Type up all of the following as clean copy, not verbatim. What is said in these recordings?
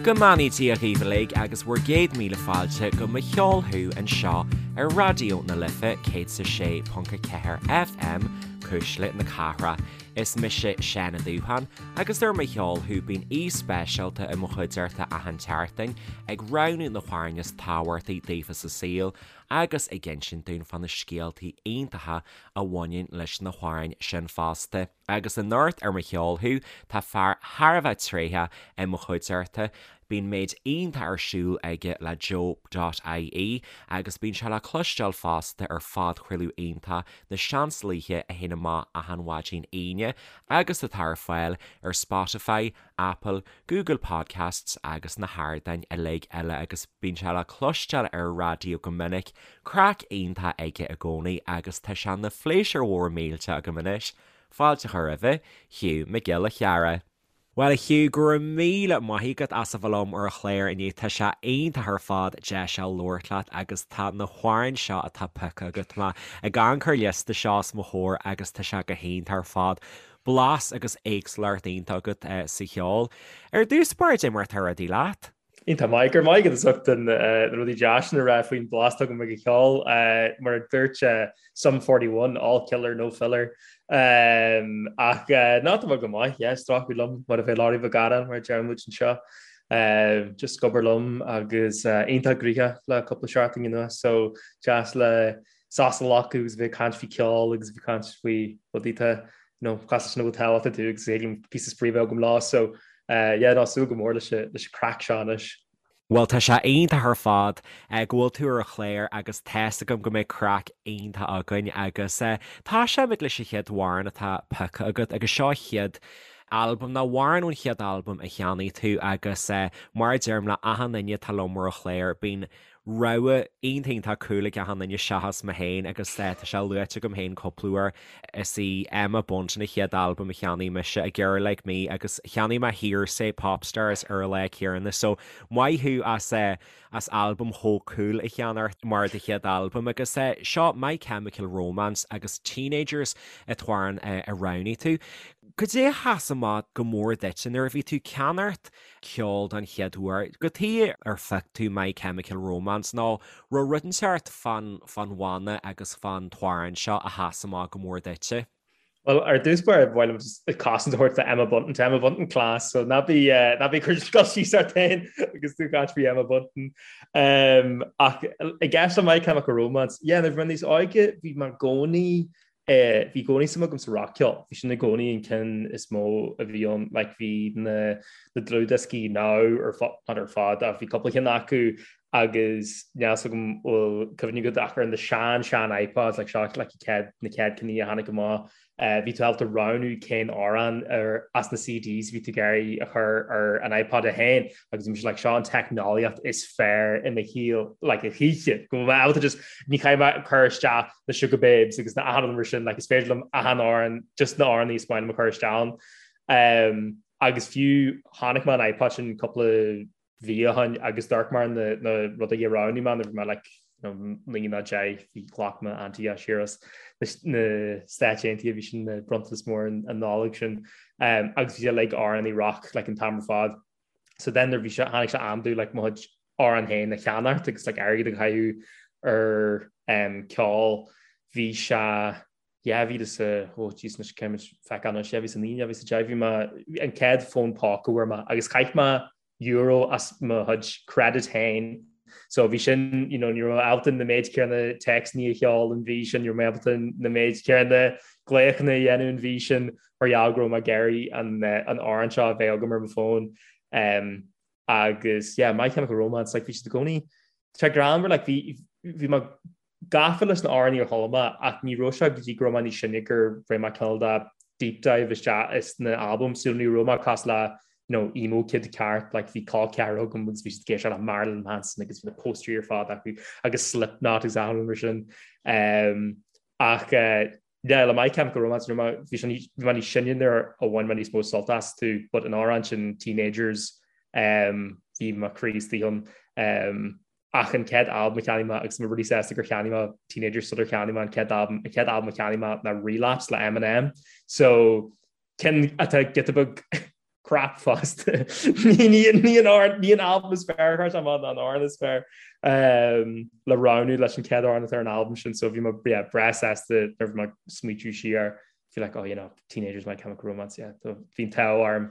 Go mbeannaí Dia dhaoibh uilig agus bhur gcéad míle fáilte go Mo Cheol Thú anseo ar Raidió na Life 106.4 FM, Cuisle na Cathrach. Is mise Seán Ó Dúcháin agus ar Mo Cheol Thú bíonn aoi speisialta i mo chuideachta achan tseachtain ag roghnú na hamhráin is tábhachtaí daofa sa saol agus ag insint dúinn fá na scéaltaí iontacha a bhaineann leis na hamhráin sin fosta. Agus anocht ar Mo Cheol Thú, tá fear thar a bheith tréitheach i mo chuideachta. Bíonn méid iontach ar siúl aige le Joe dot ie agus bíonn sé le cloisteáil fosta ar phodchraoladh iontach Na Seansálaithe a théann amach achan mhaidin Aoine agus atá ar fáil ar Spotify, Apple, Google Podcasts agus na hardáin uilig eile agus bíonn sé le cloisteáil ar an raidió go minic. Craic iontach aige i gcónaí agus tá sé ina phléisiúr mhór millteach agam anois fáilte a chur roimhe, Hugh Mac Giolla Chearra. Bhuel a Hugh, go raibh míle maith agat as a bheith liom ar an chlár inniu, tá sé iontach ar fad deis a labhairt leat agus tá na hamhráin seo atá pioctha agat, tá mé ag amharc ar an liosta seo os mo chomhair agus tá sé go hiontach ar fad. Blas agus éagsúlacht iontach agat sa cheol. Ar dtús báire, cad é mar atá rudaí leat? Iontach maith, go raibh maith agat as ucht na rudaí deas sin a rá faoin blas atá agam ag an cheol. Mar a dúirt Sum 41, all killer, no filler. Ach ná tá mé go maith, yeah, stracadh liom mar a bheadh Laurie Mhic Gharráin mar a deir muid anseo. Just ag obair liom agus iontach gnoitheach le cúpla seachtain anuas, so deas le sos a ghlacadh agus bheith ag caint faoi ceol agus bheith ag caint faoi rudaí atá you know, cosúil leis na bhfuil tábhacht acu agus thig liom píosa spraoi a bheith agam leo so yeah, ná súil go mór leis leis an craic seo anois. Bhuel tá sé iontach ar fad go bhfuil tú ar an chlár agus tá's agam go mbeidh craic iontach againn agus tosóimid leis an chéad amhrán atá pioctha agat agus seo chéad albam nó amhrán ón chéad albam a cheannaigh tú agus mar a deirim le achan duine atá liom ar an chlár bíonn rogha iontach iontach cool ag achan duine seachas mé féin agus tá sé luaite agam féin cúpla uair. Is í Emma Bunton a chéad albam a cheannaigh mise, A Girl Like Me, agus cheannaigh mé Hearsay Popstars ar an lá céanna so maith thú as as albam chomh cool a cheannacht mar do chéad albam agus seo My Chemical Romance agus Teenagers an t-amhrán a roghnaigh tú. Cad é a sheas amach go mór duitse nuair a bhí tú ag ceannacht ceol don chéad uair. Cad chuige ar phioc tú My Chemical Romance nó raibh rud inteacht fán fán bhanna agus fán t-amhrán seo a sheas amach go mór duitse? Bhuel, ar dtús báire, ba mhaith liom just cosaint a thabhairt do Emma Bunton. Tá Emma Bunton class, so ná bí ná bí ag cur cur síos ort féin agus tú ag caint faoi Emma Bunton. Um, ach i gceist le My Chemical Romance, yeah, nuair a bhí mé níos óige, bhí mé i gcónaí Bhí i gcónaí suim agam sa rac-cheol. Bhí sin i gcónaí an ceann is mó a bhí ann. Like bhí na na dlúthdhioscaí Now ar not ar fad ach bhí cúpla ceann acu agus níl fhios agam bhfuil cuimhne agat ach ar na sean sean iPods like seo like chéad na chéad cinn a tháinig amach bhí tú ábalta roghnú cén amhrán ar as na CDs bhí tú ag iarraidh a chur ar an iPod é féin agus bhí mise like seo an teicneolaíocht is fearr i mo shaol like a choíche go bhfuil mé ábalta just ní chaithfidh mé cur isteach na Sugababes agus na achan rud mar sin like is féidir liom achan amhrán just na amhráin is maith liom a chur isteach ann. Um, agus fiú chonaic mé an iPod sin cúpla mhí ó shin agus d'amharc mé ar na, na rudaí a roghnaigh mé nuair bhí mé like you know, 9 nó 10 bhí ghlac m'auntie siar as na Stáit Aontaithe bhí sin na bronntanas mór an, an Nollaig sin um, agus bhí sé like amhráin rock like an t-am ar fad. So then nuair bhí sé tháinig sé am domh like mo chuid amhrán féin a cheannacht agus like airgead a chaitheamh ar um, ceol bhí sé 2000 oh jeez anois caithfidh mé feiceáil anois 2009 2010 bhí mé an chéad fón póca a fuair mé agus chaith mé euro as mo chuid credit féin so bhí sin you know ní raibh mé ábalta na méid céanna téacsanna a sheoladh an mhí sin ní raibh mé ábalta na méid céanna glaochanna a dhéanamh an mhí sin mar gheall go raibh mé ag iarraidh an an amhrán seo a bheith agam ar mo fón. Um, agus yeah, My Chemical Romance like, bhí siad i gcónaí tá greannmhar like, bhí bhí mé gafa leis na amhráin ar chuala mé ach ní raibh sé go dtí go raibh mé níos sine gur rinne mé cineál de deep dive isteach is na albaim so ní raibh mé cosúil le you know, emo kid ceart like, bhí col ceathrar agam agus bhí siad ag éisteacht le Marilyn Manson agus bhí na póstaerí ar fad acu agus Slipknot agus achan rud mar sin. Um, ach uh, Yeah, le My Chemical Romance, bhí mé níos sine nuair a bhain mé níos mó sult astu, but an amhrán sin Teenagers, um, bhí mo chroí istigh ann. Um, ach an chéad albam a cheannaigh mé, agus mé really sásta gur cheannaigh mé Teenagers sular cheannaigh mé an chéad albam, an chéad albam a cheannaigh mé ná Relapse le Eminem. So, ceann atá giota beag. crap fosta. Ní an albam is fearr a chuir sé amach ná an amhrán is fearr le roghnú leis an chéad amhrán atá ar an albam sin so bhí mé yeah, breá sásta nuair a bhí mé ag smaoitiú siar bhí like oh you know Teenagers My Chemical Romance yeah bhí an t-ádh orm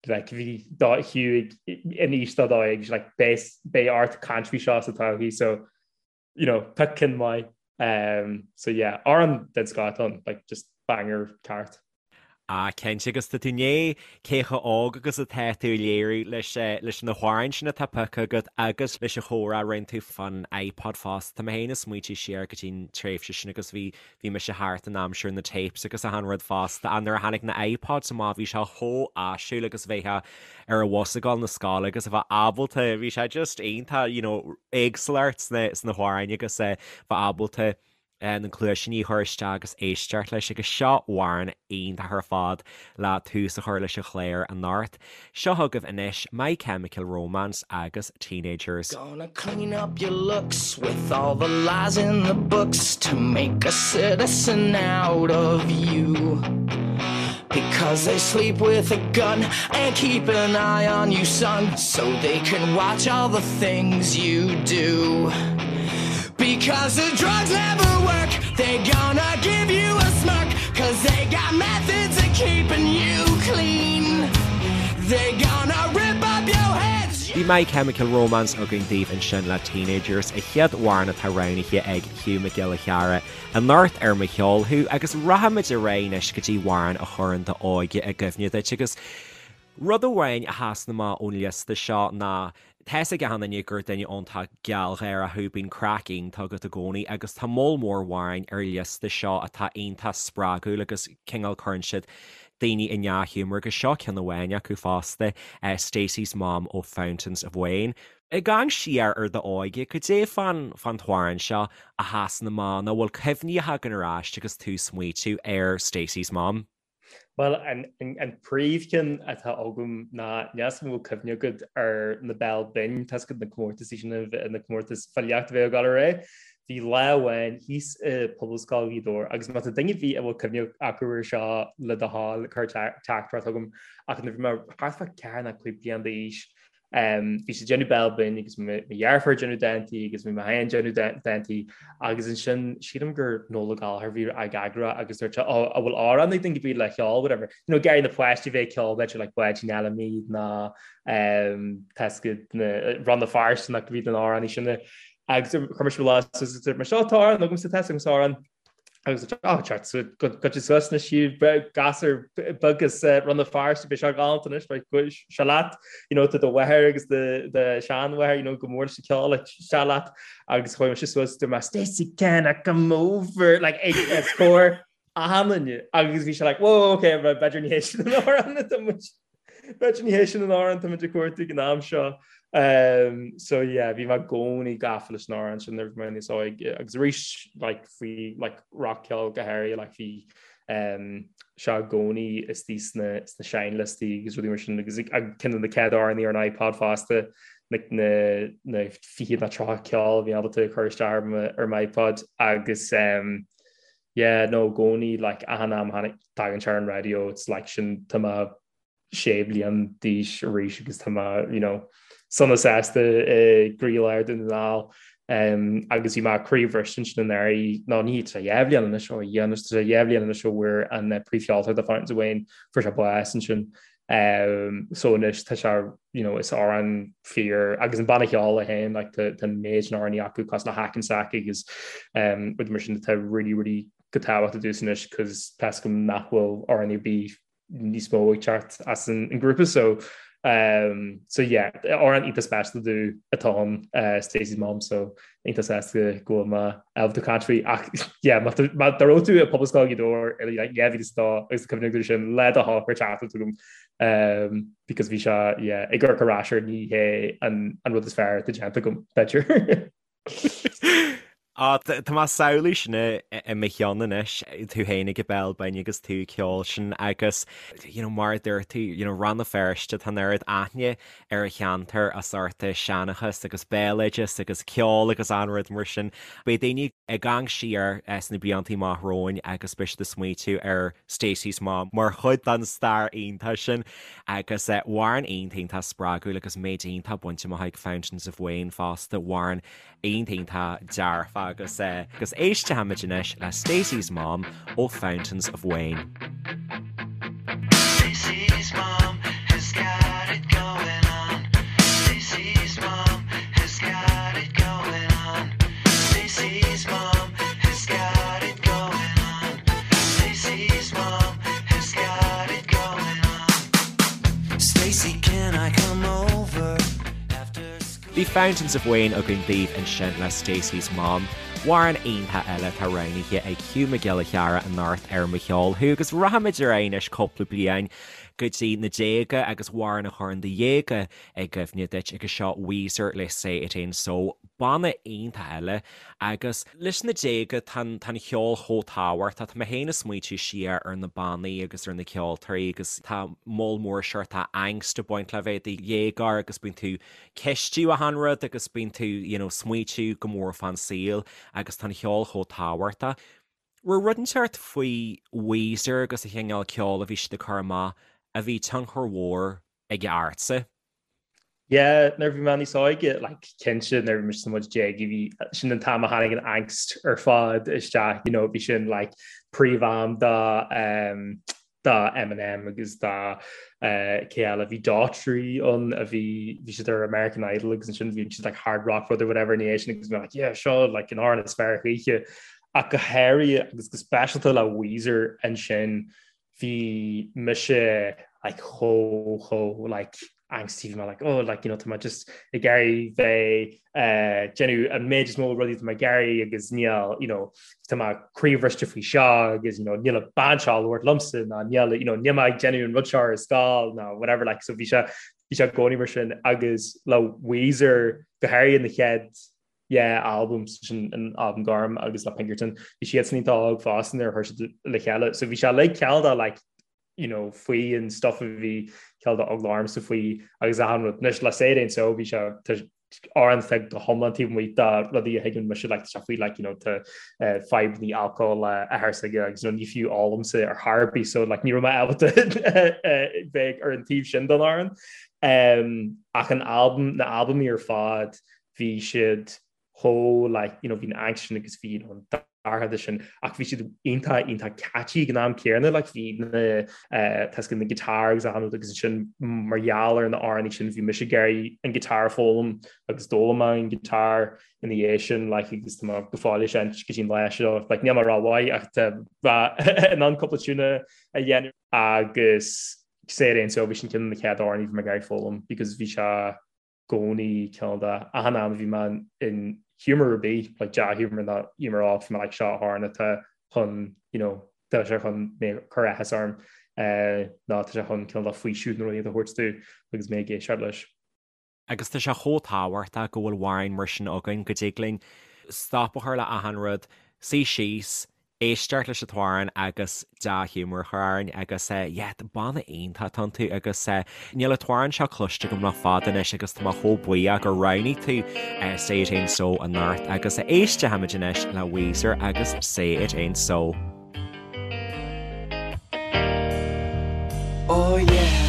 like bhí dá Hugh in aois dá dóigh agus like beidh beidh ort caint faoi seo sa todhchaí so you know pick ceann maith um so yeah amhrán den scoth atá ann like just banger ceart. Ah cinnte agus tá tú i ndiaidh cé chomh óg agus atá tú a léiriú leis leis na hamhráin sin atá pioctha agat agus leis an chomhrá a rinne tú fán iPod fosta. Tá mé féin ag smaointiú siar go dtí an tréimhse sin agus bhí bhí mise thart in aimsir na tapes agus achan rud fosta ach nuair a tháinig na iPods amach bhí sé chomh áisiúil agus bheifeá ar an bhus ag dul na scoile agus a bheith ábalta bhí sé just iontach you know éagsúlacht sna sna hamhráin agus eh bheith ábalta na cluaisíní a chur isteach agus éisteacht leis agus seo amhrán iontach ar fad le tús a chur leis an chlár anocht. Seo chugaibh anois My Chemical Romance agus Teenagers. Gonna clean up your looks with all the lies in the books to make a citizen out of you. Because they sleep with a gun and keep an eye on you, son, so they can watch all the things you do. Because the drugs never work, they gonna give you a smirk, cause they got methods of keeping you clean. They gonna rip up your heads. Bhí My Chemical Romance againn daoibh ansin le Teenagers, an chéad amhrán atá roghnaithe ag Hugh Mac Giolla Chearra anocht ar Mo Cheol Thú agus rachaimid ar aghaidh anois go dtí amhrán a chuireann d'óige i gcuimhne duit agus rud amháin a sheasann amach ón liosta seo ná tá's ag achan duine gur duine iontach gealgháireach thú, bíonn craic iontach agat i gcónaí agus tá moll mór amhráin ar an liosta seo atá iontach spreagúil agus cineál cuireann siad daoine i ndea-ghiúmar agus seo ceann amháin acu fosta, Stacey's Mom ó Fountains of Wayne. Ag amharc siar ar d'óige, cad é fán fán t-amhrán seo a sheasann amach nó bhfuil cuimhní a thagann ar ais agus tú ag smaoitiú ar Stacey's Mom? Bhuel, an an príomhcheann atá agam ná níl 'fhios agam an bhfuil cuimhne agat ar na Béal Binn, tá's agat na comórtasaí sin, na comórtais filíochta a bheadh ag dul ar aghaidh. Bhí lá amháin thíos i Pobalscoil Ghaoth Dobhair agus má tá duine ar bith a bhfuil cuimhne acu ar seo le do thoil cuir teachtaireacht chugam ach nuair a bhí mé thart fá 4 nó 5 bliana d'aois Bhí siad ag déanamh béal binn agus mo dheirfiúr ag déanamh dántaí agus bhí mé féin ag déanamh dántaí agus ansin sílim gur Noel Ó Gallchóir a bhí ag eagrú agus dúirt sé ó an bhfuil amhrán ag duine ar bith le ceol whatever. You know ag iarraidh na páistí bheith ag ceol b'fhéidir like Báidín Fheilimí nó tá's agat na Rann na Feirste nó bhí na amhráin sin agus chuir mise mo lámh suas agus dúirt mé seo tá amhrán agamsa tá's agamsa amhrán. Agus á teacht goitse suas na sí gasúr beag as Rann na Feirste beidh sé galánta anois beidh seo leat you know tá do mháthair agus do do sheanmháthair you know go mór leis an ceol like seo leat agus chuaigh mise suas dúirt mé Stacey can I come over like ag os comhair achan duine agus bhí sé like whoa okay b'fhéidir ní hé sin an amhrán atá muid B'fhéidir ní hé sin an amhrán atá muid ag cuartú ag an am seo. So yeah, bhí mé i gcónaí gafa leis an amhrán sin nuair a bhí mé níos óige agus arís like faoi like rac-cheol go háirithe like bhí sé i gcónaí istigh sna sna seinnliostaí agus rudaí mar sin agus ceann de na chéad amhráin ar an iPod fosta na na na 20 nó 30 ceol a bhí ábalta a chur isteach ar mo ar m'iPod agus um, yeah no i gcónaí like achan am a thagann sé ar an raidió it's like sin tá mé sé bliain d'aois arís agus tá mé you know sona sásta i gcroílár Dhún na nGall um, agus bhí mé croíbhriste ansin anuraidh nó ní tá dhá bhliain anois ó dhia anois tá dhá bhliain anois ó bhfuair an eh, príomhcheoltóir de Fountains of Wayne fuair sé bás ansin um, so anois tá sé you know, is amhrán fíor agus an banna ceoil é féin like, tá tá méid na amhráin acu cosúil le Hack an Sack agus um, rudaí mar sin atá really really go tábhachtach domhsa anois cos tá's agam nach bhfuil amhráin ar bith níos mó ag teacht as an ngrúpa so um, so yeah amhrán iontach speisialta domh atá ann uh, Stacey's Mom so iontach sásta go bhfuil mé ábalta caint faoi ach yeah má má dá raibh tú i Pobalscoil Ghaoth Dobhair i like 2002 agus cuimhne agat sin le do thoil cuir teachtaireacht chugam um, because bhí sé yeah ag amharc ar ais air ní hé an an rud is fearr atá déanta agam b'fhéidir. Á, tá mé ag samhlú sin i mo cheann anois, tú féin ag an Béal Binn agus tú ag ceol sin agus, you know, mar a dúirt tú, you know, Rann na Feirste, tá an oiread aithne ar an cheantar as ucht seanchas agus béaloideas agus ceol agus achan rud mar sin. Beidh daoine ag amharc siar sna blianta amach romhainn agus beidh siad ag smaoitiú ar Stacey's Mom mar chuid den stair iontach sin agus amhrán iontach iontach spreagúil agus méid iontach bainte amach ag Fountains of Wayne fosta, amhrán iontach iontach dearfa agus agus éistfimid anois le Stacey's Mom ó Fountains of Wayne. Stacey's mom has got it going on. Stacey's mom has got it going on. Stacey's mom has got it going on. Stacey's mom has got it going on. Stacey, can I come over after school? Bhí Fountains of Wayne againn daoibh ansin le Stacey's Mom, amhrán iontach eile atá roghnaithe ag Hugh Mac Giolla Chearra anocht ar Mo Cheol Thú agus rachaimid ar aghaidh anois cúpla bliain go dtí na déaga agus amhrán a chuireann do dhéaga i gcuimhne duit agus seo Weezer le Say It Ain't So, banna iontach eile Agus leis na déaga, tá an ceol chomh tábhachtach. Tá mé féin ag smaoitiú siar ar na bannaí agus ar na ceoltóirí agus tá moll mór seort angst ag baint le bheith i do dhéagóir agus bíonn tú ceistiú achan rud agus bíonn tú you know smaoitiú go mór fán saol agus tá an cheol chomh tábhachtach. Raibh rud inteacht faoi Weezer agus an chineál ceoil a bhí siad ag cur amach a bhí tionchar mhór aige ortsa? Yeah, nuair a bhí mé níos óige, like, cinnte nuair a bhí mise sna déaga, bhí sin an t-am a tháinig an angst ar fad isteach, you know, bhí sin like príomh-am do um, do Eminem agus do uh, cé eile, bhí Daughtry ann a bhí bhí siad ar American Idol agus ansin bhí siad like hard rock rud or whatever ina dhiaidh sin agus bhí like yeah seo like an amhrán is fearr choíche ach go háirithe agus go speisialta le Weezer ansin bhí mise like chomh chomh like angsty bhí mé like oh like you know tá mé just ag iarraidh bheith eh, déanamh an méid is mó rudaí tá mé ag iarraidh agus níl you know tá mé croíbhriste faoi seo agus you know níl an bhean seo ag labhairt liomsa ná níl you know níl mé ag déanamh an rud seo ar scoil ná whatever like so bhí sé bhí sé i gcónaí mar sin agus le Weezer go háirithe na chéad yeah album sin an album gorm agus le Pinkerton bhí siad san iontach óg fosta nuair a chuir siad le chéile so bhí sé like cineál de like you know faoi an stuff a bhí cineál de eagla ormsa faoi agus achan rud anois le Say It Ain't So bhí sé amhrán atá go hiomlán taobh amuigh de rudaí a thuigeann mise like tá sé faoi like you know tá uh, fadhbanna alcohol le athair s'aige agus you know, ní fiú ólaimse ar chor ar bith so like ní raibh mé ábalta uh, bheith ar an taobh sin den amhrán um, ach an album na albaimí ar fad bhí siad chomh like you know bhí an angst sin agus bhí an dorchadas sin ach bhí siad iontach iontach catchy ag an am céanna like bhí na eh, tá a fhios agat na guitar agus achan rud agus ansin mar gheall ar na amhráin sin bhí mise ag iarraidh an guitar a foghlaim agus d'fhoghlaim mé an guitar ina dhiaidh sin like agus tá mé go fóill ag seinnt go dtí an lá seo like níl mé rómhaith ach tá mé in ann cúpla tiúna a dhéanamh agus Say It Ain't So bhí sin ceann de na chéad amhráin a bhí mé ag iarraidh foghlaim because bhí sé gcónaí cineál de achan am a bhí mé in humour ar bith, like dea-humour nó humour olc, bhí mé like seo amhrán atá chun, you know, tá sé chun mé cur áthas orm eh, nó tá sé chun cineál de faoiseamh nó rud a thabhairt domh agus mé ag éisteacht leis. Agus tá sé chomh tábhachtach go bhfuil amhráin mar sin againn go dtig linn stop a chur le achan rud, suí síos, éisteacht leis an t-amhrán agus dea-ghiúmar a chur orainn agus yeah, banna iontach atá iontu agus níl an t-amhrán seo cloiste agam le fada anois agus tá mé chomh buíoch gur roghnaigh tú Say It Ain't So anocht agus éistfimid anois le Weezer agus Say It Ain't So. Oh yeah.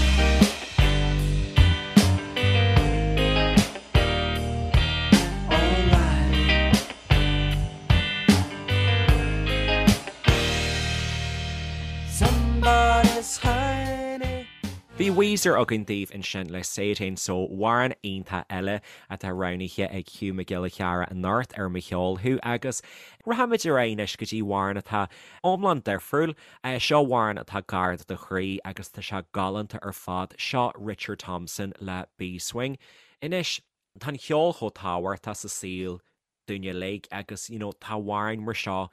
Bhí Weezer againn daoibh ansin le Say It Ain't So, amhrán iontach eile atá roghnaithe ag Hugh Mac Giolla Chearra anocht ar Mo Cheol Thú agus rachaimid ar aghaidh anois go dtí amhrán atá iomlán difriúil. Seo amhrán atá gar do do chroí agus tá sé galánta ar fad, seo Richard Thompson le Bee Swing. Anois, tá an cheol chomh tábhachtach sa saol dúinn uilig agus you know tá amhráin mar seo.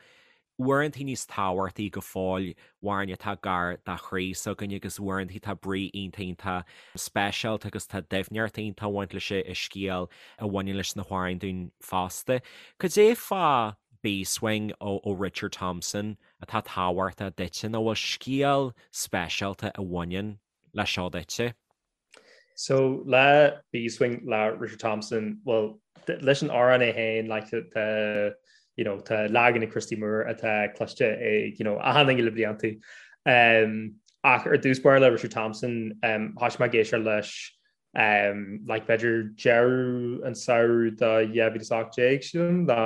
Uaireantaí níos tábhachtaí go fóill amhráin atá gar do chroí s'againne agus uaireantaí tá brí iontach iontach speisialta agus tá doimhneacht iontach ag baint leis an scéal a bhaineann leis na hamhráin dúinn fosta. Cad é fá Beeswing ó Richard Thompson atá tábhachtach duitse nó bhfuil scéal speisialta a bhaineann le seo duitse? So le Beeswing le Richard Thompson, well leis an amhrán é féin like tá you know tá leagan ag Christy Moore atá cloiste ag you know achan duine le blianta. Um, ach ar dtús báire le Richard Thompson um, thosaigh mé ag éisteacht leis um, like b'fhéidir deireadh an samhradh de 2018 sílim ná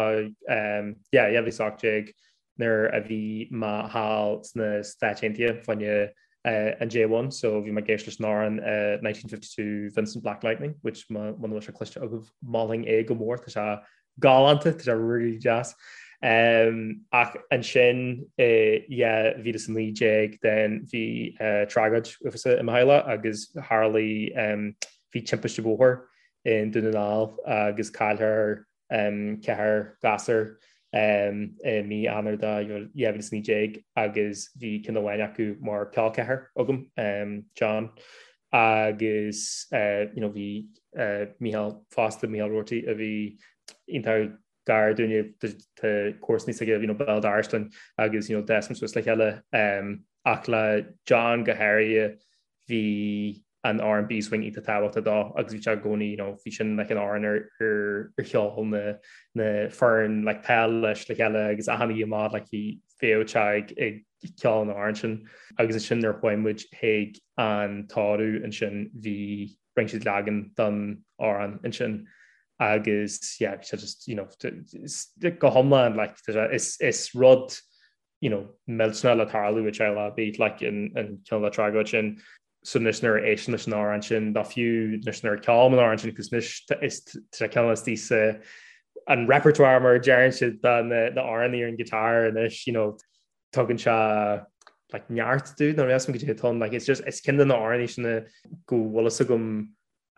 um, yeah, 2018 nuair a bhí mé thall sna Stáit Aontaithe fá choinne an J1 so bhí mé ag éisteacht leis an amhrán 1952 Vincent Black Lightning which muna bhfuil sé cloiste agaibh mholfainn é go mór tá sé galánta tá sé really deas. Um, ach ansin i 2019 then bhí uh, tragóid uafásach i mo theaghlach agus tharlaigh um, bhí timpiste bhóthair i nDún na nGall agus cailleadh ceathrar gasúr i mí Eanáir de 2019 agus bhí ceann amháin acu mar col ceathar agam, John, agus you know bhí Mícheál fosta, Mícheál Roarty, a bhí iontach gar dúinne, tá comharsanaí s'aige you know béal dorais linn agus you know d'fhás muid suas le chéile ach le John go háirithe bhí an amhrán Beeswing iontach tábhachtach dó agus bhí sé i gcónaí you know bhí sin like an amhrán ar ar cheol na na foireann like peil leis le chéile agus achan oíche amach like bhí bheadh sé ag ag ceol an amhráin sin agus ansin nuair a chuaigh muid chuig an tórramh ansin bhí rinne siad leagan don amhrán ansin agus yeah bhí sé just you know go hiomlán like is is rud you know, millteanach le tarlú i dteaghlach ar bith, like, an cineál de tragóid sin. So anois nuair a éistim leis an amhrán sin, nó fiú anois nuair a ceolaim an amhrán sin, agus anois is tá sé cineál istigh sa an repertoire mar a deireann siad de na na amhráin ar an guitar anois, you know, tugann sé like neart domh nó níl a fhios agam goidé atá ann, like it's just is ceann de na amhráin sin go bhfuil fhios agam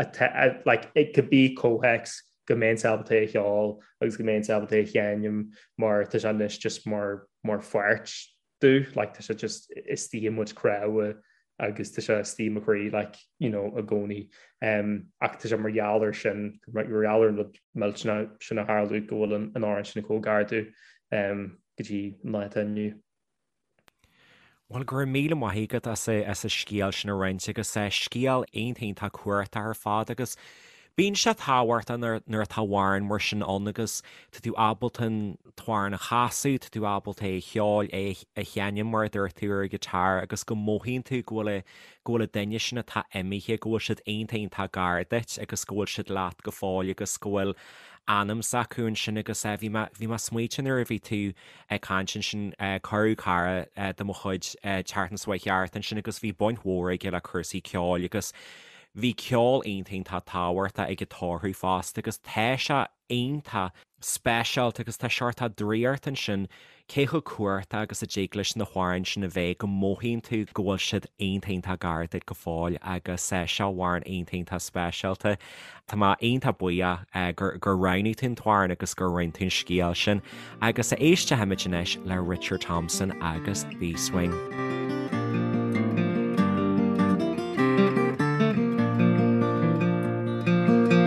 atá like i cibé comhthéacs go mbeinnse ábalta é a cheol agus go mbeinnse ábalta é a sheinm mar tá sé anois just mar mar pháirt domh like tá sé just istigh i mo chuid cnámha agus tá sé istigh i mo chroí like you know i gcónaí um, ach tá sé mar gheall ar sin mar gheall ar an rud millteanach sin a tharla go bhfuil an an amhrán sin chomh gar domh um, go dtí an lá atá inniu. Bhuel, go raibh míle maith agat as an scéal sin a roinnt agus scéal iontach iontach cumhachtach ar fad agus bíonn sé tábhachtach nuair atá amhrán mar sin ann agus tá tú ábalta an t-amhrán a chasadh, tá tú ábalta é a cheol, é a sheinm mar a dúirt tú ar an guitar agus go mothaíonn tú go bhfuil go bhfuil an duine sin atá imithe, go bhfuil siad iontach iontach gar duit agus go bhfuil siad leat go fóill agus go bhfuil anam s'acu ansin agus bhí mé bhí mé ag smaoitiú nuair a bhí tú ag caint ansin. Cuireadh cara de mo chuid an tseachtain seo chuaigh thart ansin agus bhí baint mhór aige le cúrsaí ceoil agus bhí ceol iontach iontach tábhachtach ag an tórramh fosta agus tá sé iontach speisialta agus tá seort draíocht ansin cé chomh cumhachtach agus a dtig leis na hamhráin sin a bheith go mothaíonn tú go bhfuil siad iontach iontach gar duit go fóill agus seo amhrán iontach iontach speisialta. Tá mé iontach buíoch gur gur roghnaigh tú an t-amhrán agus gur roinn tú an scéal sin agus éistfimid anois le Richard Thompson agus Beeswing.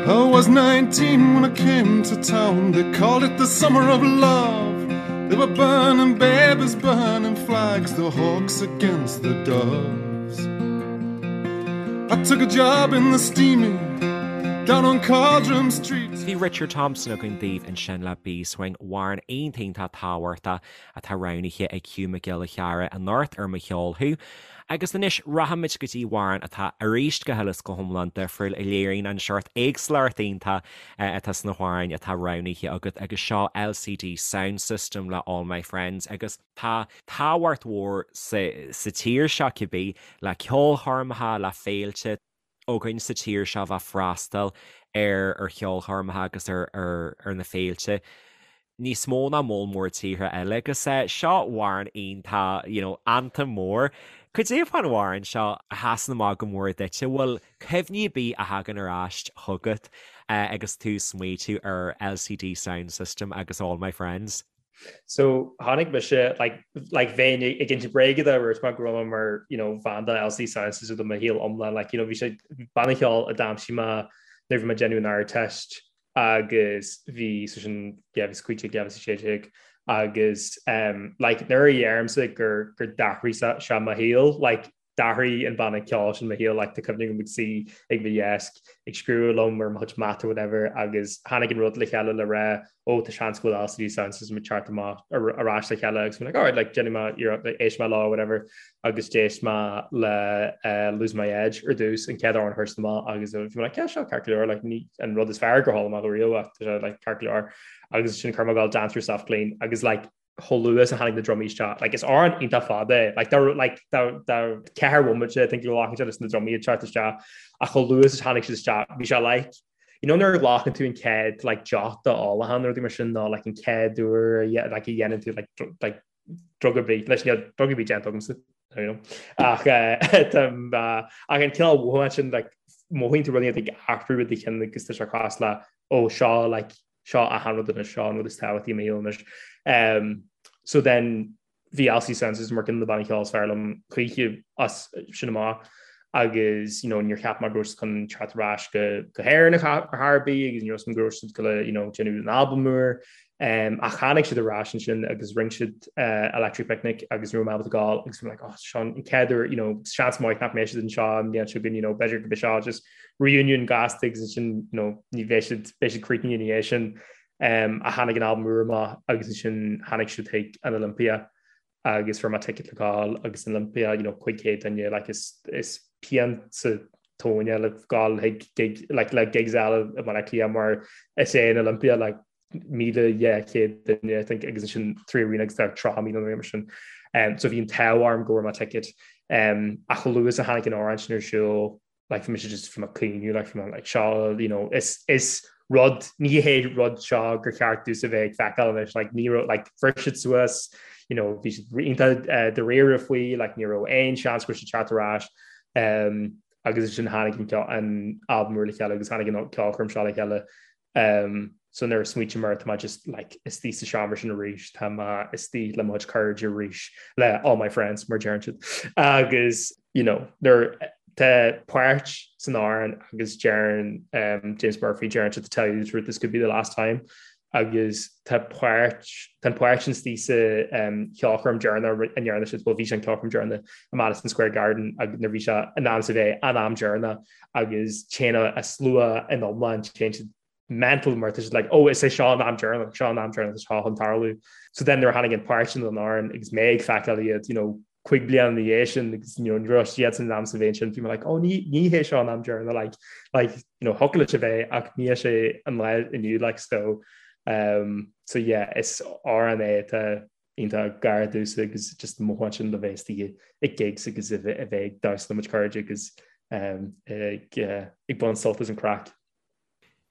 I was 19 when I came to town They called it the summer of love They were burning babies, burning flags The hawks against the doves I took a job in the steaming down on Cauldrum Street. Bhí Richard Thompson againn daoibh ansin le Beeswing, amhrán iontach iontach tábhachtach atá roghnaithe ag Hugh Mac Giolla Chearra anocht ar Mo Cheol Thú. Agus anois rachaimid go dtí amhrán atá arís go huile is go hiomlán difriúil a léiríonn an seort éagsúlacht iontach atá sna hamhráin atá roghnaithe agat agus seo LCD Soundsystem le All My Friends agus Tá tábhacht mhór sa tír seo cibé, le ceolchoirmeacha, le féilte againn sa tír seo bheith freastal ar ar cheolchoirmeacha agus ar ar na féilte níos mó ná moll mór tíortha eile agus seo amhrán iontach, you know, anthem mór. Cad é fán amhrán seo a sheasann amach go mór duit? An bhfuil cuimhní ar bith a thagann ar ais chugat agus tú ag smaoitiú ar LCD Soundsystem agus All My Friends? So tháinig mise like like bheinn ag insint bréige dá ndúirt mé go raibh mé mar you know fan de LCD Soundsystem do mo shaol iomlán like you know bhí sé banna ceoil a d'aimsigh mé nuair bhí mé ag déanamh an Ardteist agus bhí so sin yeah bhí 15 16 agus um like nuair a dheirimse gur gur d'athraigh sé mo shaol like D'athraigh an banna ceoil sin mo shaol, like tá cuimhne agam ag suí ag mo dheasc ag scríobh liom ar mo chuid mata or whatever agus tháinig an rud le chéile le rá ó tá seans go bhfuil LCD Soundsystem ag teacht amach ar ais le chéile agus bhí like alright like déanfaidh mé iarracht like éistfidh mé leo or whatever agus d'éist mé le uh, Lose My Edge ar dtús an chéad amhrán a chuir siad amach agus bhí mé like yeah seo ceart go leor like ní an rud is fearr gur chuala mé riamh ach tá sé like ceart go leor agus ansin chuir mé ag gabháil Dance Yourself Clean agus like chomh luath is a tháinig na drumaí isteach. Like, is amhrán iontach fada é. Like, dá, like, dá, dá ceathair bhomaite, I think, go nglacann sé leis na drumaí ag teacht isteach. Ach chomh luath is a tháinig siad isteach, bhí sé like, you know nuair a ghlacann tú an chéad, like, deoch d'ólachán nó rudaí mar sin, nó like an chéad uair a, like, a dhéanann tú, like, like, drug ar bith, leis níl drug ar bith déanta agamsa, you know. Ach, eh, tá, ach an cineál mhothúchán sin, like, mothaíonn tú rudaí ag athrú i do chionn agus tá sé cosúil le, ó, seo, like, seo achan rud anois, seo an rud is tábhachtaí i mo shaol anois. So then bhí LCD Soundsystem mar ceann de na bannaí ceoil is fearr liom choíche as sin amach agus you know níor cheap mé go raibh siad chun teacht ar ais go go hÉirinn ar chor ar bith agus ní raibh go raibh siad go you know déanamh an albam úr. Um, ach tháinig siad ar ais ansin agus rinne siad uh, Electric Picnic agus ní raibh mé ábalta gabháil agus bhí mé like, oh, seo an chéad uair, you know, seans maith nach mbeidh siad anseo an bhliain seo chugainn, you know, b'fhéidir go mbeidh seo just reunion gasta agus ansin you know, ní bheidh siad beidh siad críochnaithe ina dhiaidh sin um, ach tháinig an albam úr amach agus ansin tháinig siad chuig an Olympia agus fuair mé ticket le gabháil agus an Olympia you know, 500 duine like, is, is pian sa tóin le gabháil chuig gig, like, le gigs eile i mBaile Átha Cliath mar is é an Olympia like, 1,200 duine I think agus ansin 3Arena agus tá 30,000 nó mar sin. Um, so bhí an t-ádh orm go bhfuair mé ticket. Um, ach chomh luath is a tháinig an amhrán sin ar siúl like bhí mise just bhí mé ag caoineadh like bhí mé like seo you know is is rud ní hé rud seo gur cheart domhsa bheith ag feiceáil anois like ní raibh like bhris siad suas you know bhí siad iontach uh, dáiríre faoi like ní raibh aon seans go raibh siad teacht ar ais um, agus ansin tháinig an an albam úr le chéile agus tháinig an ceolchoirm seo le chéile Um, so nuair a smaoiním air tá mé just like istigh sa seomra sin arís, tá mé istigh le mo chuid cairde arís, le all my friends mar deireann siad. Agus you know, nuair tá páirt san amhrán agus deireann um, James Murphy deireann sé to tell you the truth this could be the last time agus tá páirt tá an páirt sin istigh sa um, cheolchoirm deireanach a ndearna siad, well bhí sé an ceolchoirm deireanach i Madison Square Garden agus nuair bhí sé in am sa bheith an am deireanach agus téann an slua in iomlán, téann siad mental mar tá siad like oh is é seo an am deireanach, seo an am deireanach seo chun tarlú. So then nuair a tháinig an páirt sin den amhrán agus mé ag feiceáil iad you know cúig bliana ina dhiaidh sin agus you know ní raibh siad in am sa bheith sin bhí mé like oh ní ní hé seo an am deireanach like like you know thiocfadh leis a bheith ach ní hé sé an lá inniu like so um so yeah is amhrán é atá iontach gar domhsa agus just mothúchán sin le bheith istigh ag gigs agus a bheith ag damhsa le mo chuid cairde agus ag ag baint sult as an craic.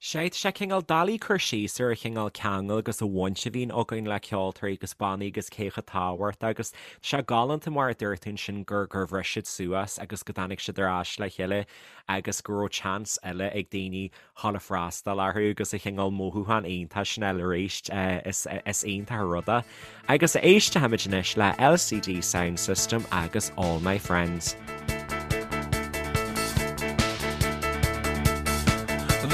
Sea, tá sé cineál doiligh cur síos ar an chineál ceangal agus an bhaint a bhíonn againn le ceoltóirí agus bannaí agus cé chomh tábhachtach agus tá sé galánta mar a dúirt tú ansin gur gur bhris siad suas agus go dtáinig siad ar ais le chéile agus go raibh chance eile ag daoine dhul a freastal orthu agus an cineál mothúchán iontach sin a fháil arís. Is iontach an rud é. Agus éistfimid anois le LCD Soundsystem agus All My Friends.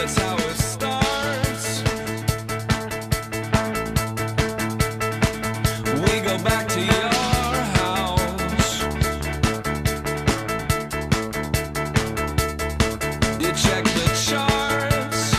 That's how it starts. We go back to your house. You check the charts.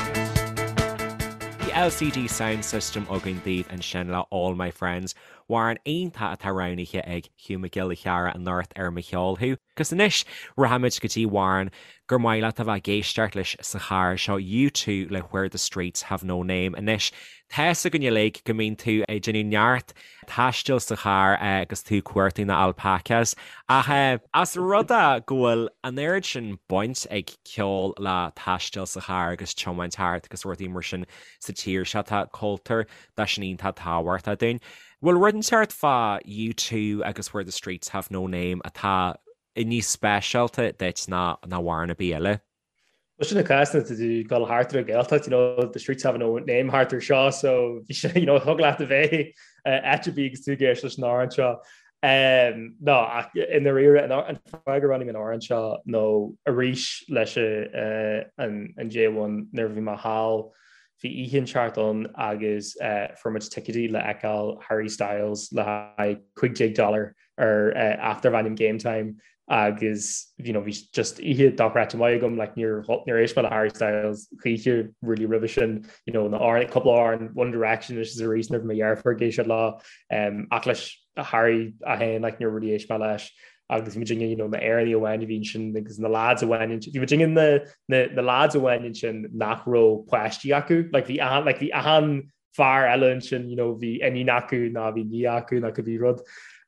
Bhí LCD Soundsystem againn daoibh ansin le All My Friends, amhrán iontach atá roghnaithe ag Hugh Mac Giolla Chearra anocht ar Mo Cheol Thú. Agus anois, rachaimid go dtí amhrán gur maith leat a bheith ag éisteacht leis sa charr, seo U2 le Where the Streets Have No Name. Anois, tá's againn uilig go mbíonn tú ag déanamh neart taistil sa charr agus tú ag cuartú na alpacas. Ach as rud é go bhfuil an oiread sin baint ag ceol le taisteal sa charr agus tiomáint thart agus rudaí mar sin sa tír seo, tá cultúr de sin iontach tábhachtach dúinn. Bhfuil rud inteacht fá U2 agus Where the Streets Have No Name atá níos speisialta duit ná amhrán ar bith eile? Well sin an cás nuair atá tú ag dul thart ar an Ghaeltacht, you know, the streets have no name thart ar seo, so bhí sé, you know, thig leat a bheith áit ar bith agus tú ag éisteacht leis an amhrán seo. Um, no, ach i ndáiríre, an an fáth gur roghnaigh mé an amhrán seo nó arís leis an an J1 nuair a bhí mé thall, bhí oíche inteacht ann agus uh, fuair muid ticéidí le feiceáil Harry Styles le haghaidh 15 dollar ar aip darb ainm Game Time agus you know bhí just oíche dochreidte maith agam like níor níor éist mé le Harry Styles choíche really roimhe sin you know na amhráin cúpla amhrán One Direction anois is arís nuair bhí mo dheirfiúr ag éisteacht leo um, ach leis Harry é féin like níor really éist mé leis agus bhí muidinne you know na Éireannaigh amháin a bhí ansin agus na lads amháin bhí muidinne na na na lads amháin ansin nach raibh páistí acu like bhí like bhí achan fear eile ansin you know bhí iníon acu nó bhí nia acu nó cibé rud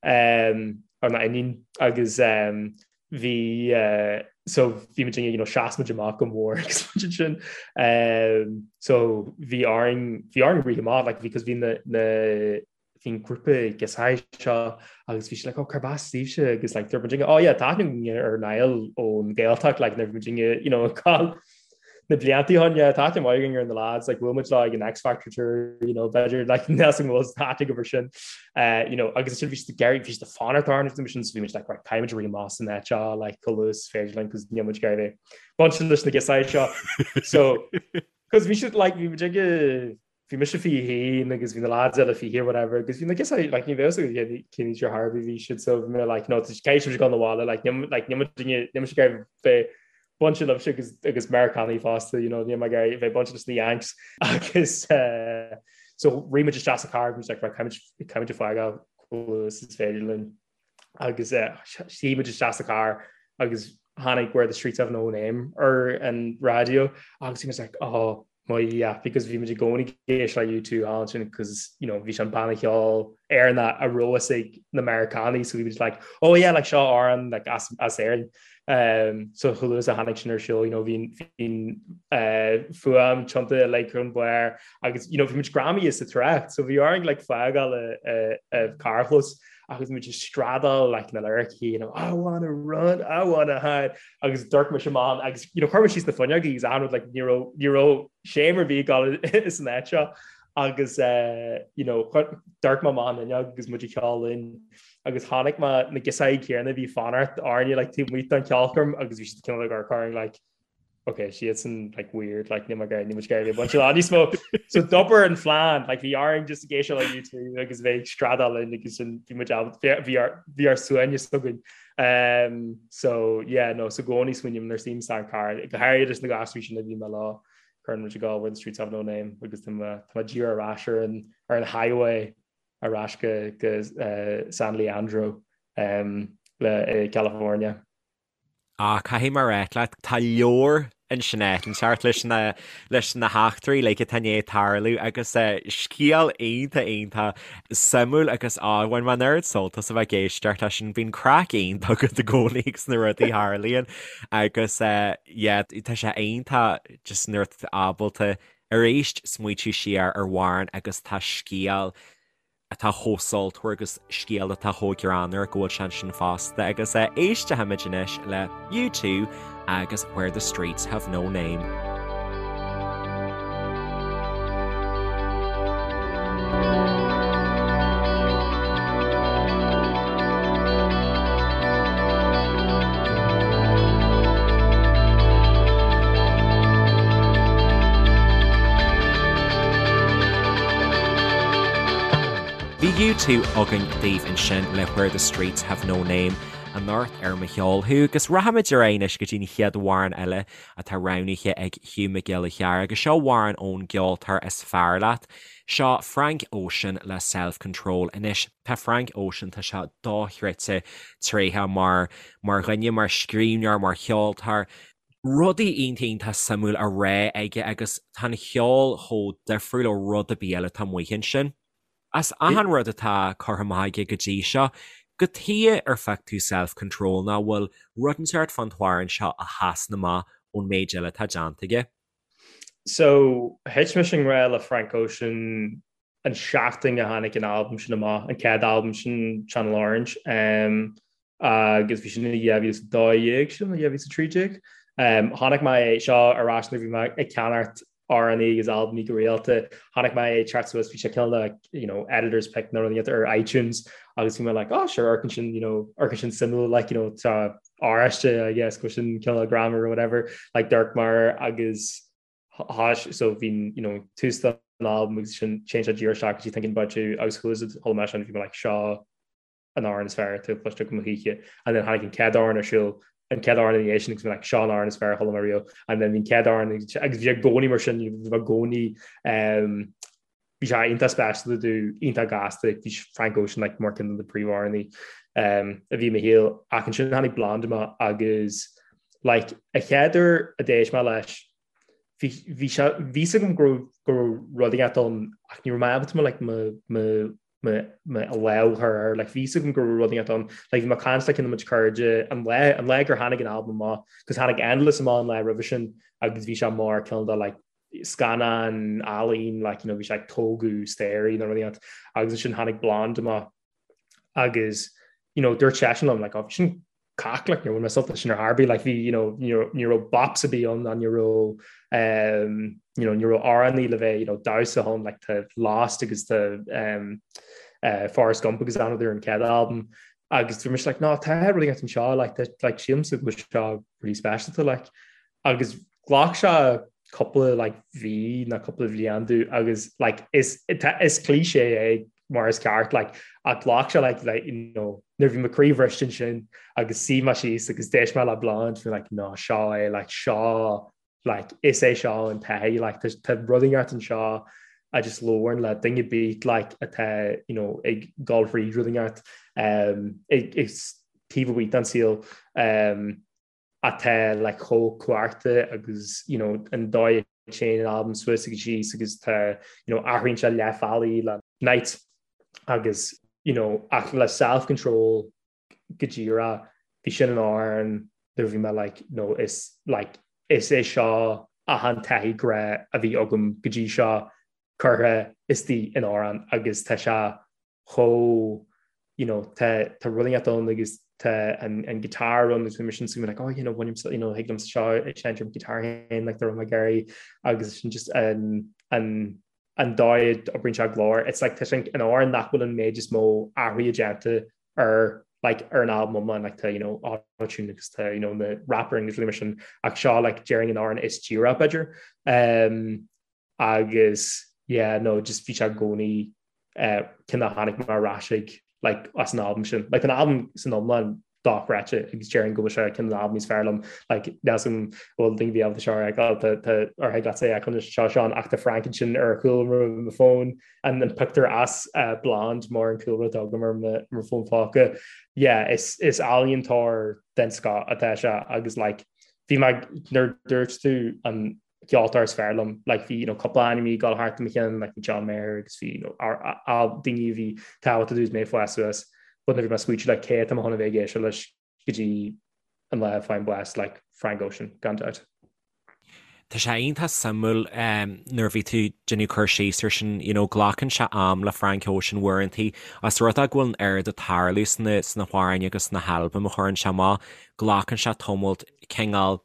um, or ná iníon agus um, bhí uh, so bhí muid you know sheas muid amach go mór agus muid ansin um, so bhí orainn bhí orainn rith amach like because bhí na na bhí an grúpa girseachaí seo agus bhí sé like oh cárb as daoibhse agus like dúirt muid oh yeah tá aithne againn ar Niall ón Ghaeltacht like nuair bhí muid you know ag na blianta ó shin yeah tá aithne mhaith againn ar na lads like bhuail muid leo ag an X Factor tour you know b'fhéidir like níl an bhfuil aithne agaibh air sin uh, you know agus sin bhí siad ag iarraidh bhí siad ag fanacht orainn sin so bhí muid like right caithfidh muid rith amach as an áit seo like chomh luath is féidir linn cos níl muid ag iarraidh bheith bainte leis na girseachaí seo so cos bhí siad like bhí muid ag bhí mise 21 agus bhí na lads eile 20 or whatever agus bhí na girseachaí like ní bheadh a fhios agam cén aois ar chor ar bith bhí siad so bhí mé like no caithfidh sibh dul 'na bhaile like níl like níl muid níl mise ag iarraidh bheith bainte libhse agus agus Meiriceánaigh fosta you know níl mé ag iarraidh bheith bainte leis na Yanks agus uh, so rith muid isteach sa car agus like right caithfidh muid fágáil chomh luath is féidir linn agus uh, shuigh muid isteach sa car agus tháinig Where the Streets Have No Name ar an raidió agus bhí muid like oh mo Dhia because bhí muid i gcónaí ag éisteacht le U2 thall ansin because you know bhí sé an banna ceoil Éireannach a raibh fhios ag na Meiriceánaigh so bhí muid like oh yeah like seo amhrán like as as Éirinn um, so chomh luath is a tháinig sin ar siúl you know bhí bhí uh, fuaim tiontaithe like chun barr agus you know bhí muid greamaithe sa trácht so bhí orainn like fágáil an carrchlós agus muid ag screadaíl like na lyricí you know I wanna run I wanna hide agus d'amharc mise amach agus you know chuir mé síos na fuinneogaí agus achan rud like ní raibh ní raibh shame ar bith ag dul san áit seo agus uh, you know d'amharc mé amach an fhuinneog agus muid ag ceol linn agus chonaic mé na girseachaí céanna a bhí fanacht orainne like taobh amuigh den cheolchoirm agus bhí siad cineál ag amharc orainn like ok siadsan like weird like níl mé ag níl muid ag iarraidh bheith bainte leo níos mó so d'oibir an phlean like bhí orainn just ag éisteacht le U2 agus bheith ag screadaíl linn agus sin bhí muid bhí ár bhí ár suaimhneas againn um, so yeah no so i gcónaí smaoiním nuair a suím san car go háirithe leis na gasúir sin a bhí mé leo cuireann muid ag gabháil where the streets have no name agus tá mé tá mé díreach ar ais ar an ar an highway ar ais go go uh, San Leandro um, le i California. Ah, caithfidh mé a ráit leat, tá leabhar ansin inteacht leis na, leis na heachtraí uilig atá i ndiaidh tarlú agus scéal iontach, iontach suimiúil agus á, bhain mé an oiread sult as a bheith ag éisteacht leis sin. Bíonn craic iontach agat i gcónaí agus na rudaí a tharlaíonn agus yeah, tá sé iontach just nuair atá tú ábalta arís smaoitiú siar ar amhrán agus tá scéal atá chomh sultmhar agus scéal atá chomh greannmhar go bhfuil sé ansin fosta agus éistfimid anois le U2 agus Where the Streets Have No Name. Bhí U2 againn daoibh ansin le Where the Streets Have No Name anocht ar Mo Cheol Thú agus rachaimid ar aghaidh anois go dtí an chéad amhrán eile atá roghnaithe ag Hugh Mac Giolla Chearra agus seo amhrán ón gceoltóir is fearr leat. Seo Frank Ocean le Self Control. Anois tá Frank Ocean, tá sé dochreidte tréitheach mar mar dhuine, mar scríbhneoir, mar cheoltóir. Rudaí iontach iontach suimiúil á rá aige agus tá an cheol chomh difriúil ó rud ar bith eile atá amuigh ansin. As achan rud atá curtha amach aige go dtí seo, cad chuige ar phioc tú Self Control nó an bhfuil rud inteacht fán t-amhrán seo a sheasann amach ón méid eile atá déanta aige? So, thit mise i ngrá le Frank Ocean an seachtain a tháinig an albam sin amach, an chéad albam sin Channel Orange, um, agus bhí sin i 2012 sin, 2013. Chonaic mé é seo ar ais nuair bhí mé ag ceannacht amhránaí agus albaimí go rialta. Chonaic mé é ag teacht suas, bhí sé cineál like, you know, editor's pick nó rud ar iTunes agus bhí mé like, oh sure, amharcann sin, you know, amharcann sin suimiúil, like, you know, tá oráiste, I guess, go sin cineál grammar or whatever, like d'amharc mé air agus tháis, so bhí, you know, tús den albam agus sin téann sé díreach isteach go dtí Thinking About You agus chuala mé sin, bhí mé like, seo an amhrán is fearr atá cloiste agam choíche and then tháinig an chéad amhrán ar siúl an chéad amhrán ina dhiaidh sin agus bhí like seo an amhrán is fearr a chuala mé riamh and then bhí an chéad amhrán agus bhí i gcónaí mar sin bhí i gcónaí um, bhí sé iontach speisialta domh iontach gasta bhí Frank Ocean like mar ceann de na príomhamhránaí um, a bhí i mo shaol ach ansin tháinig Blonde amach agus like a chéad uair a d'éist mé leis bhí bhí sé bhí a fhios agam go raibh go raibh rud éigin ann ach ní raibh mé ábalta mo like mo mo mo mo lámh a chur air like bhí a fhios agam go raibh rud éigin ann like bhí mé ag caint le ceann de mo chuid cairde an lá an lá gur tháinig an albam amach cos tháinig Endless amach an lá roimhe sin agus bhí sé mar ceann de like scannán ealaín like you know bhí sé ag tógadh staighrí nó rud éigin agus ansin tháinig Blonde amach agus you know dúirt seisean liom like oh bhí sin cac like níor bhain mé sult as sin ar chor ar bith like bhí you know ní raibh bops ar bith ann ná ní raibh um, you know ní raibh amhránaí le bheith you know damhsa ann like tá Lost agus tá um, uh, Forrest Gump agus another an chéad album agus bhí mise like ná tá rud éigin anseo like tá like sílimse go bhfuil seo really speisialta like agus ghlac sé cúpla like mhí nó cúpla bhliain domh agus like is is cliché é mar is ceart like ach ghlac sé like like you know nuair bhí mo chroí bhriste ansin agus shuigh mé síos agus d'éist mé le Blonde bhí like ná seo é like seo like is é seo an taithí like tá tá rud éigin anseo a just labhrann le duine ar bith like atá you know ag dul thríd rud éigin um ag ag taobh amuigh den saol um atá like chomh cumhachtach agus you know an dóigh a dtéann an albam suas agus síos agus tá you know athraíonn sé leath bealaigh le Nights agus you know ach le Self Control go díreach bhí sin an amhrán nuair bhí mé like no is like is é seo achan taithí grá a bhí agam go dtí seo curtha istigh in amhrán agus tá sé chomh you know tá tá rud éigin ann agus tá an an guitar ann agus bhí mise ansin like oh you know bhain you know thig liom seo a sheinnt ar guitar féin like dá raibh mé ag iarraidh agus sin just an an an dóigh a oibríonn sé glór it's like tá sin an amhrán nach bhfuil an méid is mó athruithe déanta ar like ar an album iomlán like tá you know auto-tune agus tá you know na rapper agus rudaí mar sin ach seo like déarfainn an amhrán is díreach b'fhéidir um agus yeah no just bhí sé i gcónaí eh ceann a tháinig mé ar ais ag like as an albam sin. Like an albam san iomlán dochreidte agus déarfainn go bhfuil sé ceann de na albaim is fearr liom like níl a fhios agam bhfuil daoine ábalta seo a fheiceáil tá tá ar thig leat é a fheiceáil seo Seán ach tá Frank ansin ar chúlra mo fón an an pictiúr as uh, Blonde mar an cúlra atá agam ar mo mo fón póca. Yeah is is ealaíontóir den scoth atá sé agus like bhí mé nuair dúirt tú an ceoltóir is fearr liom like bhí you know cúpla ainm ag dul thart i mo cheann like bhí John Mayer agus bhí you know daoine a bhí tábhachtach domh is mé ag fás suas but nuair bhí mé ag smaointiú like cé atá mé chun a bheith ag éisteacht leis go dtí an lá a fhaighim bás like Frank Ocean gan dabht. Tá sé iontach suimiúil nuair a bhí tú déanamh cur síos ar sin, you know, glacann sé am le Frank Ocean uaireantaí, os rud é go bhfuil an oiread ag tarlú sna sna hamhráin agus sna halbaim a chuireann sé amach, glacann sé tamalt cineál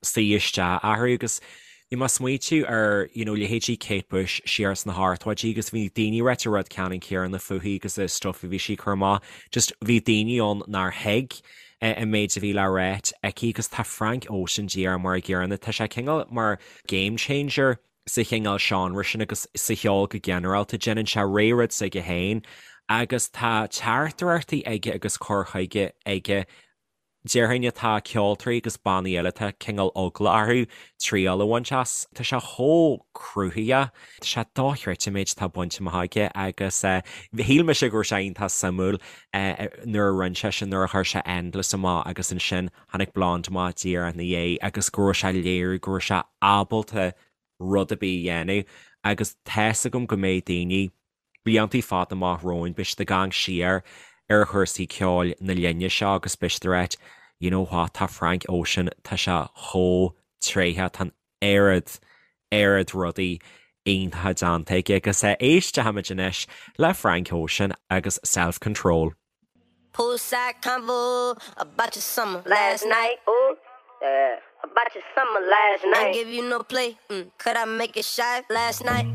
suí isteach orthu agus bhí mé ag smaoitiú ar you know leithéidí Kate Bush siar sna hochtóidí agus bhí daoine ag ráit an rud ceannann céanna fúithi agus an stuff a bhí sí ag cur amach just bhí daoine ann nár thuig an méid a bhí le ráit aici agus tá Frank Ocean díreach mar an gcéanna tá sé cineál mar game changer sa chineál seánra sin agus sa cheol go ginearálta déanann sé rud s'aige féin agus tá teachtaireachtaí aige agus cur chuige aige Déarfainn atá ceoltóirí agus bannaí eile atá cineál eagla orthu triail a bhaint as. Tá sé chomh cruthaitheach. Tá sé dochreidte an méid atá bainte amach aige agus shíl mise go raibh sé iontach suimiúil nuair a rinne sé sin, nuair a chuir sé Endless amach agus ansin tháinig Blonde amach díreach ina dhiaidh agus go raibh sé ag léiriú go raibh sé ábalta rud ar bith a dhéanamh agus tá's agam go mbeidh daoine bliantaí fada amach romhainn, beidh siad ag amharc siar ar chúrsaí ceoil na linne seo agus beidh siad ag ráit, you know what, tá Frank Ocean, tá sé chomh tréitheach, tá an oiread, oiread rudaí iontacha déanta aige agus éistfimid anois le Frank Ocean agus Self Control. Poolside convo about your summer last night. Ooh, yeah. About your summer last night. Ain't give you no play. Mm. Could I make it shy last night?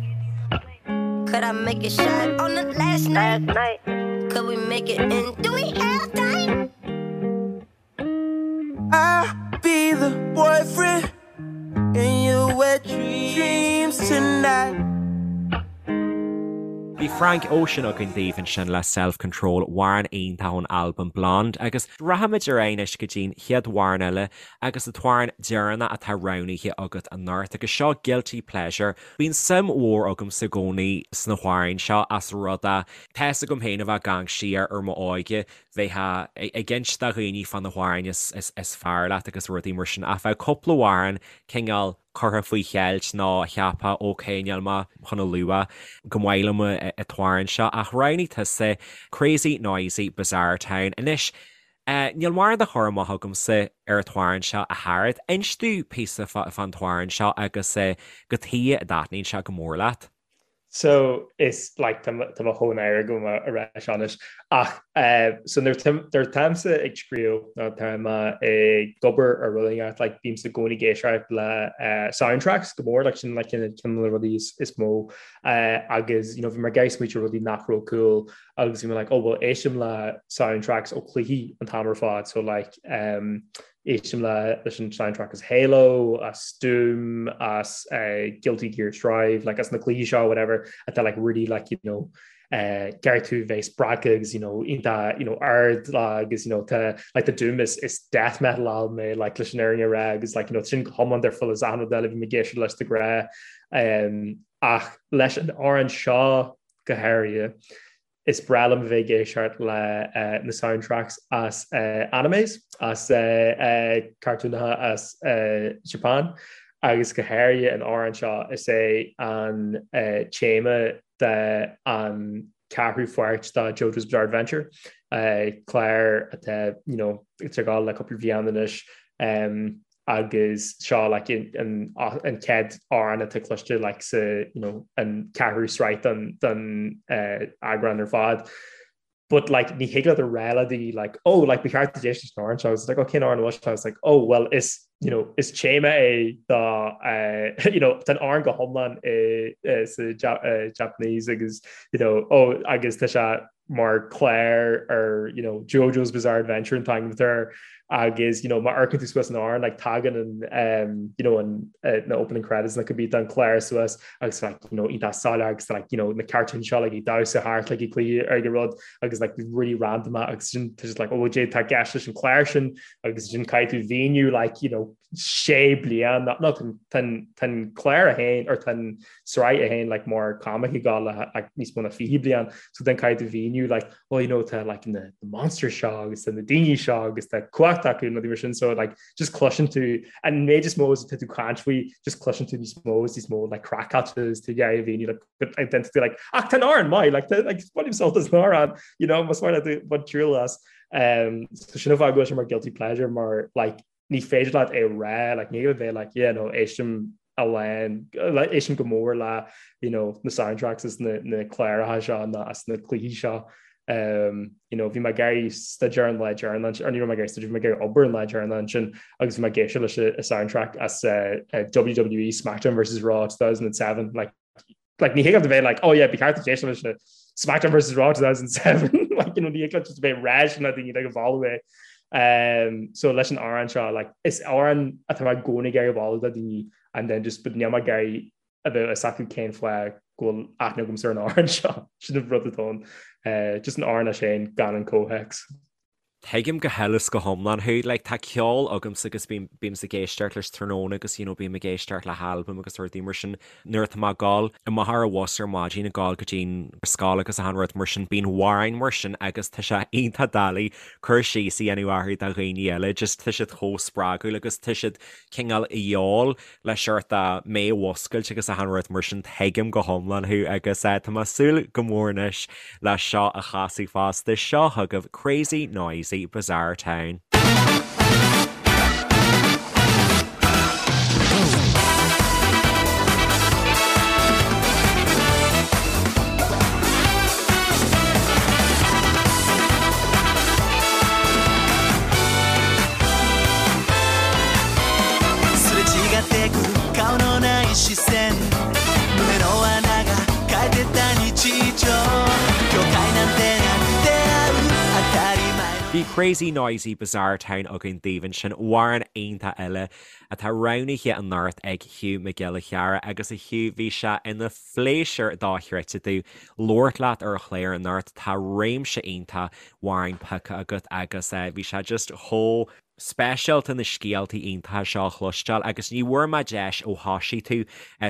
Could I make it shy on the last night? Last night. Could we make it in? Do we have time? I'll be the boyfriend in your wet dreams tonight. Bhí Frank Ocean againn daoibh ansin le Self Control, amhrán iontach ón albam Blonde agus rachaimid ar aghaidh anois go dtí'n chéad amhrán eile agus an t-amhrán deireanach atá roghnaithe agat anocht agus seo Guilty Pleasure. Bíonn suim mhór agamsa i gcónaí sna hamhráin seo as rud é tá fhios agam féin a bheith ag amharc siar ar m'óige bheifeá ag inse do dhaoine fá na hamhráin is fearr leat agus rudaí mar sin ach bheadh cúpla amhrán cineál curtha faoi cheilt nó cheapfá ok níl mé chun a lua gur maith liom an t-amhrán seo ach roghnaigh tusa Crazy Noisy Bizarre Town. Anois níl mórán de chur amach agamsa ar an t-amhrán seo a Shearad. Inis domh píosa fán t-amhrán seo agus cad chuige a dtaitníonn sé go mór leat. So is like tá mé chomh náireach agam a rá seo anois ach so nuair atáimse ag scríobh nó tá mé ag obair ar rud éigin like bímse i gcónaí ag éisteacht le soundtracks go mór like sin like ceann de na rudaí is mó agus you know bhí mé ag iarraidh smaoitiú ar rudaí nach raibh cool agus bhí mé like oh well éistim le soundtracks ó chluichí an t-am ar fad so like um, Éistim le leis an soundtrack as Halo, as Doom, as Guilty Gear Strive, like as na cluichí seo whatever atá like really like you know uh, gearr tú bheith spreagtha agus you know iontach you know ard agus you know tá like the Doom is, is death metal album é like leis an fhírinne a rá agus like you know sin go hiomlán difriúil as achan rud eile a bhím ag éisteacht leis de ghnáth um, ach leis an amhrán seo go háirithe Is breá liom a bheith ag éisteacht le na soundtracks as animes, as cartúnacha as Japan agus go háirithe an amhrán seo, is é an téama de an ceathrú pháirt de JoJo's Bizarre Adventure, clár atá you know ag gabháil le cúpla bliain anois. agus seo like an an chéad amhrán atá cloiste like sa you know an ceathrú sraith den den eagrán ar fad. But like ní thig leat a rá le daoine like oh like ba cheart duit éisteacht leis an amhrán seo it's like oh cén amhrán seo it's like oh well is you know is téama é do uh, you know tá an amhrán go hiomlán i uh, sa uh, Japanese agus you know oh agus tá sé mar clár ar you know, JoJo's Bizarre Adventure an t-ainm atá air agus you know, má amharcann tú suas an amhrán like, tagann an, um, you know, an, uh, na opening credits na cibé an clár suas agus like, you know, iontach soiléir agus like, you know, na cartoon seo like, ag damhsa thart like, ag cluiche ar an rud agus like, really random agus sin tá just like, oh, cad é atá i gceist leis an clár sin agus sin caithfidh tú mhíniú like, you know, sé bliain nó tá an clár féin or tá an sraith féin like mar comic ag gabháil le like níos mó ná 20 bliain so then caithfidh tú mhíniú like oh you know tá like na the monster seo agus tá na daoine seo agus tá cumhacht acu nó mar sin so like just cloiseann tú an méid is mó is atá tú ag caint faoi just cloiseann tú níos mó is níos mó like craiceáilte is tú ag iarraidh a mhíniú like identity like ach tá an amhrán maith like tá like bainim sult as an amhrán you know más maith leat bain triail as um so sin an fáth go bhfuil sé mar guilty pleasure mar like ní féidir leat é rá, like, ní bheith like, yeah, no, éistim a lán, like, éistim go mór le, you know, na soundtracks is na, na cláracha seo na as na cluichí seo. Um, you know, bhí mé ag iarraidh staidéar an lá deireanach, or ní raibh mé ag iarraidh staidéar, bhí mé ag iarraidh obair an lá deireanach ansin agus bhí mé ag éisteacht leis an soundtrack as uh, uh, WWE SmackDown vs Raw 2007, like, like ní thig leat a bheith like oh yeah ba cheart duit éisteacht leis SmackDown vs Raw 2007 like you know ní thig leat just a bheith ag rá sin le daoine like a mholadh é um so leis an amhrán seo like is amhrán atá mé i gcónaí ag iarraidh a mholadh do daoine and then just but níl mé ag iarraidh a bheith fhios acu cén fáth go bhfuil aithne agamsa ar an amhrán seo sin an rud atá ann uh, just an amhrán é sin gan an comhthéacs. Tuigim go huile is go hiomlán thú. Like, tá ceol agamsa agus bím, bímse ag éisteacht leis tráthnóna agus, you know, bím ag éisteacht le halbaim agus rudaí mar sin nuair atá mé ag gabháil amach ar an bhus ar maidin ag gabháil go dtí'n scoil agus achan rud mar sin, bíonn amhráin mar sin agus tá sé iontach doiligh cur síos a dhéanamh orthu do dhaoine eile, just tá siad chomh spreagúil agus tá siad cineál a dhíobháil le seort mé a mhuscailt agus achan rud mar sin, tuigim go hiomlán thú agus tá mé ag súil go mór anois le seo a chasadh fosta. Seo chugaibh Crazy Noisy Bizarre Town. Bhí Crazy Noisy Bizarre Town againn daoibh ansin, amhrán iontach eile atá roghnaithe anocht ag Hugh Mac Giolla Chearra agus a Hugh bhí sé ina phléisiúr dochreidte domh labhairt leat ar an chlár anocht, tá réimse iontach amhrán pioctha agat agus bhí sé just chomh speisialta na scéaltaí iontacha seo a chloisteáil agus ní bhfuair mé deis ó thosaigh tú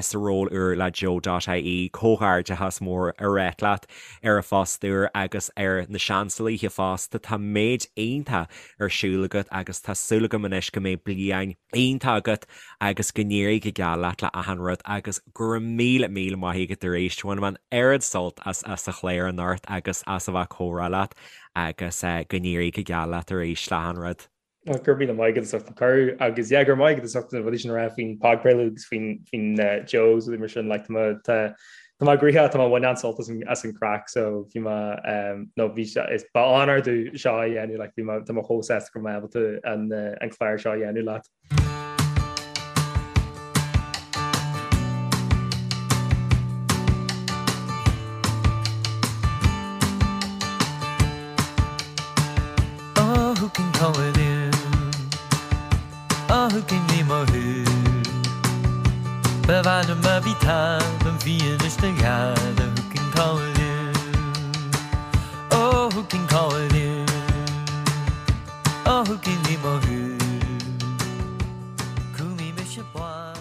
sa ról úr le Joe dot ie comhghairdeachas mór a ráit leat ar an phost úr agus ar na Seansalaithe fosta. Tá méid iontach ar siúl agat agus tá súil agam anois go mbeidh bliain iontach agat agus go n-éirí go geal leat le achan rud agus go raibh míle míle maith agat arís. Bhain mé an oiread sult as as an chlár anocht agus as a bheith ag comhrá leat. agus go n-éirí go geal leat arís le hachan rud. Go raibh míle maith agat as ucht an cuireadh agus yeah go raibh maith agat as ucht na rudaí sin a rá faoin podchraoladh agus faoin faoin Joe agus rudaí mar sin like tá mé tá tá mé gnoitheach tá mé bhain an-sult as an as an craic so bhí mé um, no bhí sé is ba onóir domh seo a dhéanamh like bhí mé tá mé chomh sásta go raibh mé ábalta an an clár seo a dhéanamh leat. Oh, who can call it in? Oh, who can ní mo thu? Ba mhaith liom a bhí táim an fianaise do ghearradh, who can call it in? Oh, who can call it in? Oh, who can ní mo thu? Cúlaí mise bláth.